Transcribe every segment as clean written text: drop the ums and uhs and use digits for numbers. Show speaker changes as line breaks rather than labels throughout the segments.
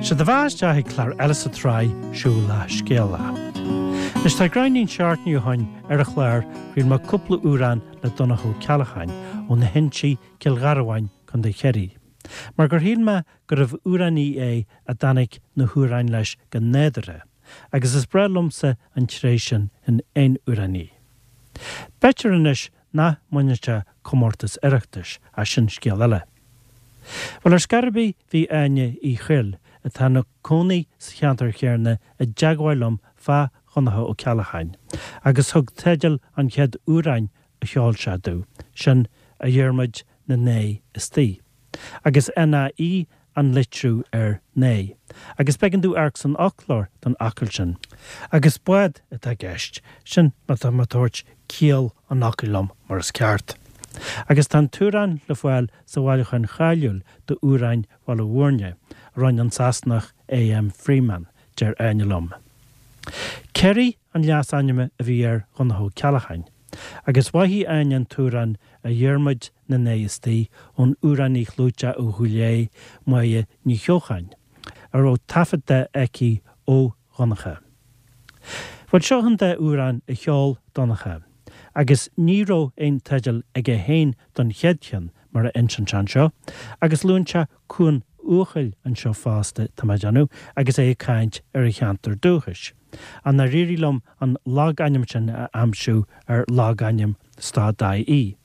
Sea, do bheatha isteach ag clár eile sa tsraith Siúil le Scéala. Anois tá gráinnín seachtainí ó shoin ar an chlár chraol mé cúpla amhrán le Donncha Ó Ceallacháin ó na hInsí, Cill Gharbháin, Co. Chiarraí. Mar gur shíl mé gurbh amhránaí é a dtáinig na hamhráin leis go nádúrtha, agus is breá liomsa an tréith sin in aon amhránaí. B'fhéidir anois nach mbaineann sé comórtas Oireachtais, ach sin scéal eile. Bhuel, ar scor ar bith, bhí Áine Uí Chuill, atá ina cónaí sa cheantar chéanna, i dteagmháil liom fá Dhonncha Ó Ceallacháin, agus thug teideal an chéad amhráin a sheol sé domh, sin A Dhiarmuid na Naoi Istoíche. Agus NAE an litriú ar Naoi. Agus b'éigean domh amharc san fhoclóir don fhocal sin. Agus bád atá i gceist, sin má tá mé ag tabhairt ciall an fhocail liom mar is ceart. Agus tá an t-amhrán le fáil sa bhailiúchán cháiliúil d'amhráin Bhaile Bhúirne, a rinne an Sasanach A.M. Freeman, deir Áine liom. Kerry an leasainm a bhí ar Dhonncha Ó Ceallacháin. Agus mhaígh Áine an t-amhrán A Dhiarmuid na Naoi Istoíche ón amhránaí chlúiteach ó Chúil Aodha, Máire Ní Cheocháin, a raibh taifead de aici ó Dhonncha. Bhuel, seo an dá amhrán a sheol Donncha, agus ní raibh aon teideal aige féin don chéad cheann, mar a insíonn sé anseo, agus luann sé Cuan Eochaill anseo fosta, tá mé ag déanamh, agus é ag caint ar a cheantar dúchais. Ach nár éirigh liom an logainm sin a aimsiú ar logainm stad-ie.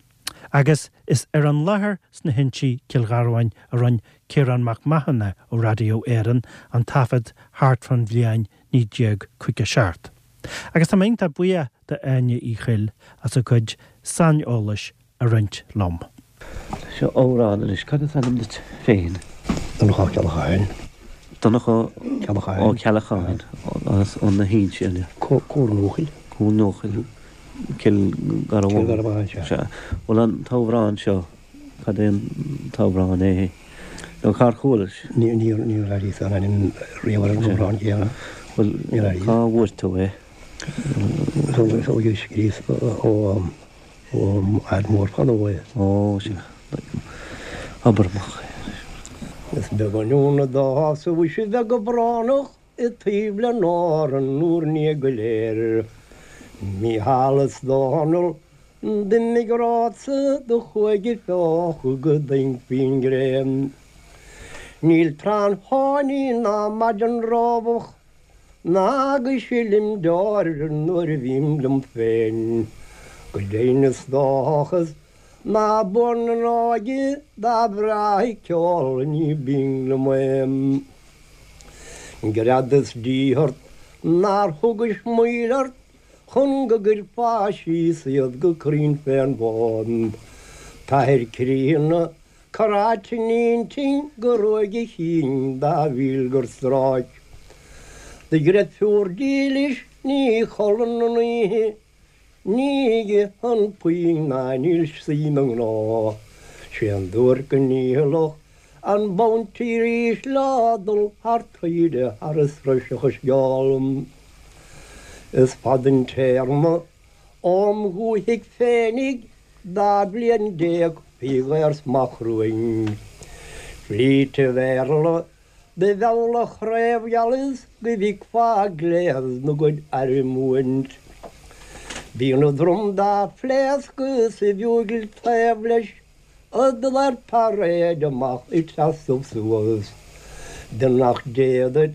Agus is ar an láthair sna hInsí, Cill Gharbháin, a rinne Ciarán Mac Mathúna ó Radio Éireann an taifead thart fán bhliain 1957. Agus tá mé iontach buíoch d'Áine Uí Chuill as a cuid saineolais a roinnt liom.
Seo amhrán anois. Cad is ainm duit féin?
Donncha Ó Ceallacháin.
Donncha Ó Ceallacháin as ó na hInsí, an ea?
Cuan Eochaill.
Cuan Eochaill, Cill Garbháin.
Cill Gharbháin, sea.
Sea. Bhuel an t-amhrán seo, cad é an t-amhrán é? Nó cár chualais?
Níor airíos an ainm riamh ar an amhrán céanna.
Bhuel, cá bhfuair tú é?
Thógais scríos ó fhear mór fadó é.
Ó, sea. Abair amach é anois.
Is beag an ionadh dá shásamh is a bheith go brónach i dtaobh le n-Árann úr ndiaidh go léir. Mícheál is Dónall d'imigh romhatsa do chuaigh ag feochadh go doimhin faoin ngréin. Níl tráth an fáinní ná maidin rábach Ná go silim deoir nuair a bhím liom féin. Go deimhin is dóchas ná buan an óige dá bhreátha ceol ní binn liom é. Greadas díth ort nár thugais moill ort chun go gcuirfeá síos iad go cruinn fén bhfód. T'athair críonna Corráite in intinn go ruaig a chinn dá mhíl gur stráic. Do dhreirfiúr dílis ní chodlann an oíche, ní itheann puinn ná níl sí 'na gnó. 'Sé an duairc go ndícheallach an bounty arís le dul thar taoide thar a sroisfeadh a sceol. Is fada an téarma óm dhúthaigh féinig 12 bliain faoi dhaorsmacht chruain. Flít an Bhéarla do mheall a chraobhgheal is go bhficfeá gléas 'na gcuid airm uaint. Bíonn a drom dá phléascadh is a bhiúgil taobh leis ag dul ar paréid amach ag seasamh suas. Beannacht Dé duit,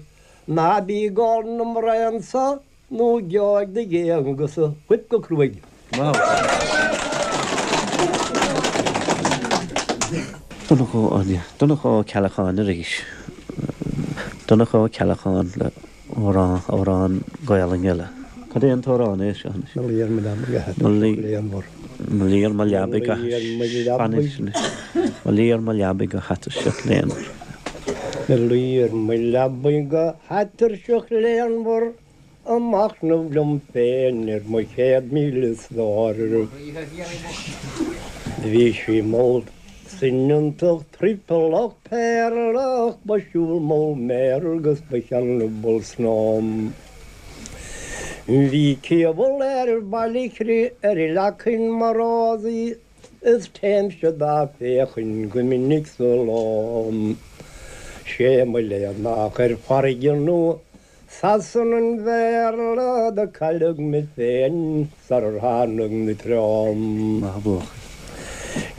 ná bí ag ól na mbraon so Nó gheobhaidh do dh'Aonghus-sa fuip go cruaidh.
Donncha Ó Donncha Ó Ceallacháin arís. Donncha Ó Ceallacháin le amhrán, amhrán Gaelainn eile. Cad é an t-amhrán é seo anois?
Mo luí ar mo leabaidh go hatuirseach léanmhar.
Mo luí ar mo leabaidh go Mo luí ar mo leabaidh go hatuirseach léanmhar.
Mo luí ar mo leabaidh go hatuirseach léanmhar. Ag machnamh liom féin ar mo 100,000 stór. Bhí sí mall soineantach triopallach péarlach, ba siúl mall méar agus ba cheannabhal snom. Bhí ciabhal ar Bhaile ar leacain mar rósaí Is téimse dá féachaint go minic sa ló. Sé mo léan nach ar farraige nó Sasana an Bhéarla do cailleadh mé féin sarar tháinig na treo.
Maith a bhuachaill.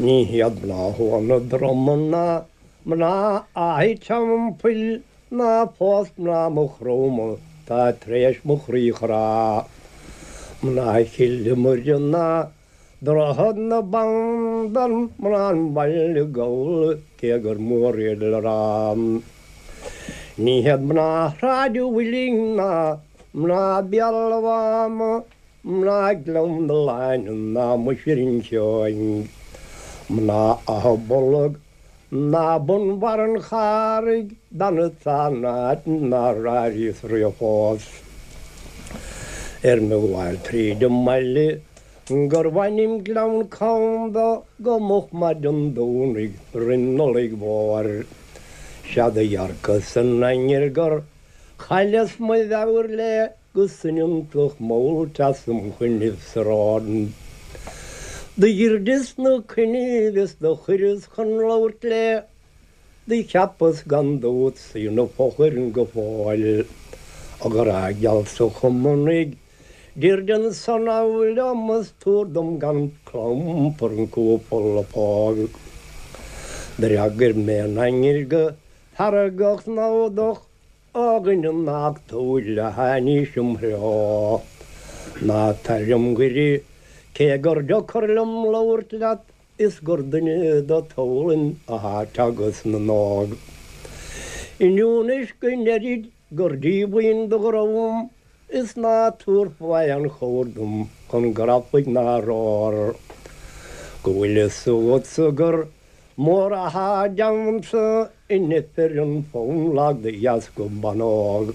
Ní hiad mná Thua na Droma ná mná Átha Teampaill ná fós mná Mhaigh Chromtha tá tar éis mo chroí chrá. Mná Chill Iomaire ná Droichead na Bandan, mná an bhaile Gabhla, cé gur mór iad le rá. Ní hiad mná Shráid an Mhuilinn ná mná Bhéal an Mháma, mná Ghleann na Lainne ná muise Rinn Sheoin, mná Átha Bolg, Ná bun bharr an Charraig d'fhanfadsa in áit nár airíos riamh fós. Ar mo ghabháil tríd an mbaile gurbh ainm Gleann Cam dó go moch maidin Domhnaigh roim Nollaig Mhór. Sea do dhearcas an ainnir gur chailleas mo mheabhair léi go soineantach mall teas im choinnibh sa ród. Do dhruideas na coinnibh is do chuireas chun labhairt léi, do cheapas gan dabht 's í 'na fochair go fóill. A ghrá geal 's a Chumannaigh, druid ansan liom is tabhair dom gan clampar an cúpla póg. D'fhreagair mé an ainnir go feargach namhdach, A dhuine nach dúil a tháinís im threo, Ná tar im ghaire, cé gur deocair liom labhairt leat, Is gur duine de toghlainn athá teagasc na n-óg. Inniu anois go ndeirid gur díomhaoin do dhream, Is ná tabharfá aon chabhair dom chun grafaidh ná rothar, Go bhfuil fhios agatsa gur Mór athá déanta in ifreann fonn lag de dheasca ban óg.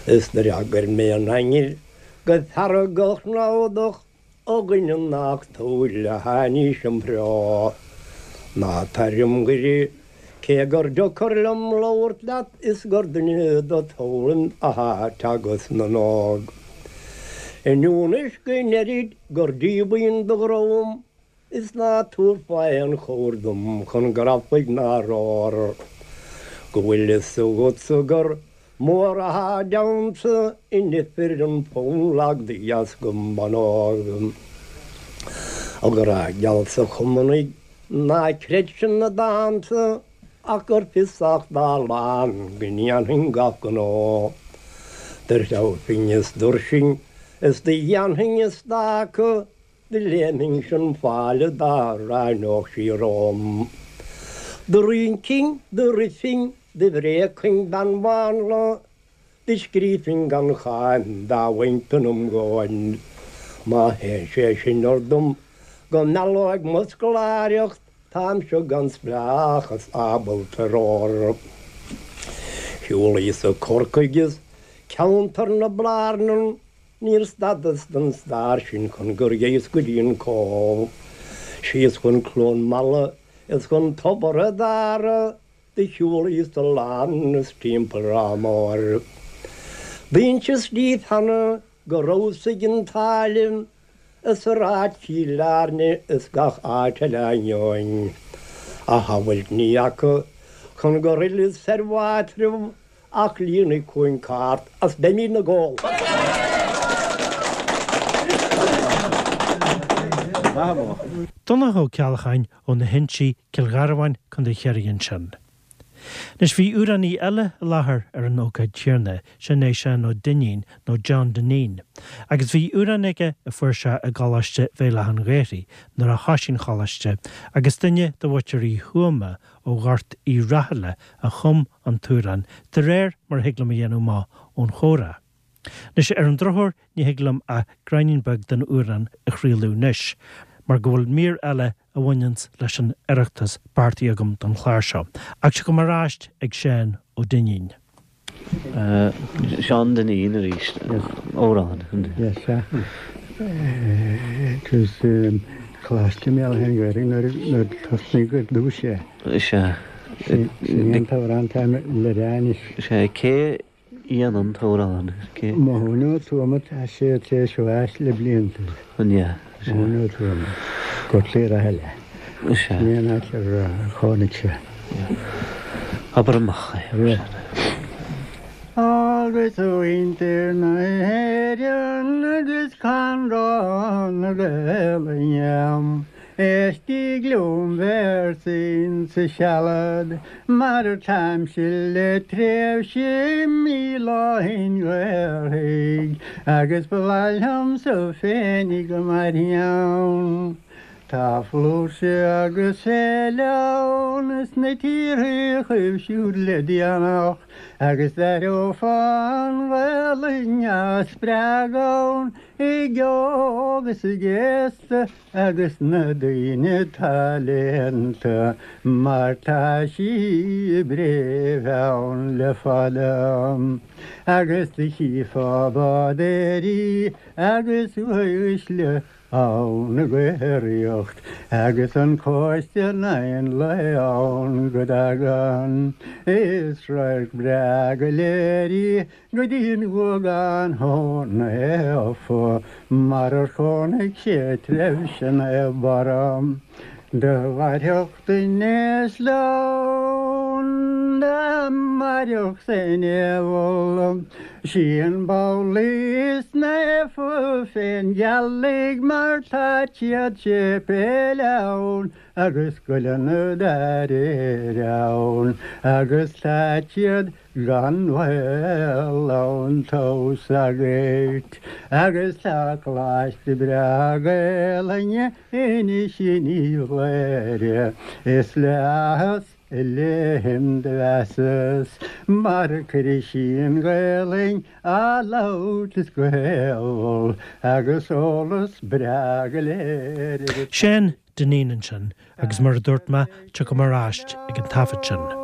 Is d'fhreagair mé an ainnir go feargach namhdach, A dhuine nach dúil a tháinís im threo. Ná tar im ghaire, cé gur deocair liom labhairt leat is gur duine de toghlainn athá teagasc na n-óg. Inniu anois go ndeirid gur díomhaoin do dhream, Is ná tabharfá aon chabhair dom chun grafaidh ná rothar, Go bhfuil fhios agatsa gur mór athá déanta in ifreann fonn lag de dheasca ban óg. A ghrá geal 's a Chumannaigh, ná creid sin na dánta ach gur fiosach dá lán go ndéanfainn gach gnó. Do threabhfainn is d'fhuirseoinn is do dhéanfainn a stáca, Do léimfinnse an falla dá ráineodh sí romham. Do rincfinn, do rithfinn, do bhréagfainn bean mhánla, do scríobfainn gan cháim dá bhfuighinn im dhóthain. Má théann sé sin orm go meallóidh mo scoláireacht, táimse gan spleáchas ábalta ar ór. Shiúlaíos-sa Corcaigh is ceantar na Blarnan, Níor stadas don stair sin chun gur ghéas go dtí an Cóbh. Síos chun Cluain Meala is chun Tobar a' Dara do shiúlaíos a lán is timpeall Ráth Móir. D'inseas díbh cheana go rabhas ag an tSáile is i Ráth Chill Airne is gach áit eile ainneoin a shamhailt ní fhaca chun gur fhilleas ar m'áitreabh Ach líonfaidh chugainn cairt as beimid 'na gcodladh.
Donncha Ó Ceallacháin ó na hInsí, Cill Gharbháin, Co. Chiarraí ansin. Anois bhí amhránaí eile i láthair ar an ócáid chéanna, sin é Seán Ó Duinnín, nó John Dineen, agus bhí amhrán aige a fuair sé i gColáiste Bhéal Átha an Ghaorthaidh nuair a thoisigh an choláiste agus duine de mhuintir Uí Thuama ó Ghort Uí Rathaille a chum an t-amhrán, de réir mar a thig liom a dhéanamh amach ón chomhrá. Anois, ar an drochuair, ní thig liom ach gráinnín beag den amhrán a chraoladh anois, mar go bhfuil mír eile a bhaineanns leis an Oireachtas beartaithe agam don chlár seo. Ach tiocfaidh mé ar ais ag Seán Ó Duinnín.
Seán Dineen arís, amhrán.
Yes, sea. It was Coláiste Bhéal Átha an Ghaorthaidh nuair a tosnaíodh ar dtús
é. Sea.
Sin é an t-amhrán atá le rá anois.
Sea, cé a dhein an t-amhrán?
Mathúna Ó Tuama, tá sé tar éis bháis le blianta.
An ea?
Mathúna Ó Tuama, Gort Uí Rathaille.
Sea.
Sin é an áit ar chónaigh sé.
Abair amach é.
Agus a mhuintir na hÉireann agus Conradh na Gaelainne, éistigí liom véarsaín sa sealad mar táimse le tréimhse míle ó shin Ghaorthaidh agus ba mhaith liomsa féinig go mairfinn ann. Tá flúirse agus féile ann sna tíortha chugaibh siúd le déanach agus d'aireofá an Ghaelainn á spreagadh ann ag óg is ag aosta agus na daoine atá léannta mar tá sí i bpréimh ann le fada agus do chífeá bádóirí agus uaisle ann ag aeraíocht agus an cóiste in aghaidh an lae ann go dtagann. Is radharc breá go léir í go dtí an Guagán Naofa mar ar chónaigh sé tréimhse Naomh Barra. Do mhairfeadh duine slán dá mairfeadh san diabhal. Sí an ball is naofa fén ghealaigh mar tá siad séipéil ann agus scoileanna dá réir ann agus tá siad Gan mhoill ann tomhas agat agus tá coláiste breá Gaelainne anois in Cléire is le áthas a léim do mheasas mar cuirfidh sí an Ghaelainn á labhairt is go héabhal agus eolas breá go léir ar
Seán Dineen ansin agus mar a dúirt mé, tiocfaidh mé ar ais ag an taifead sin.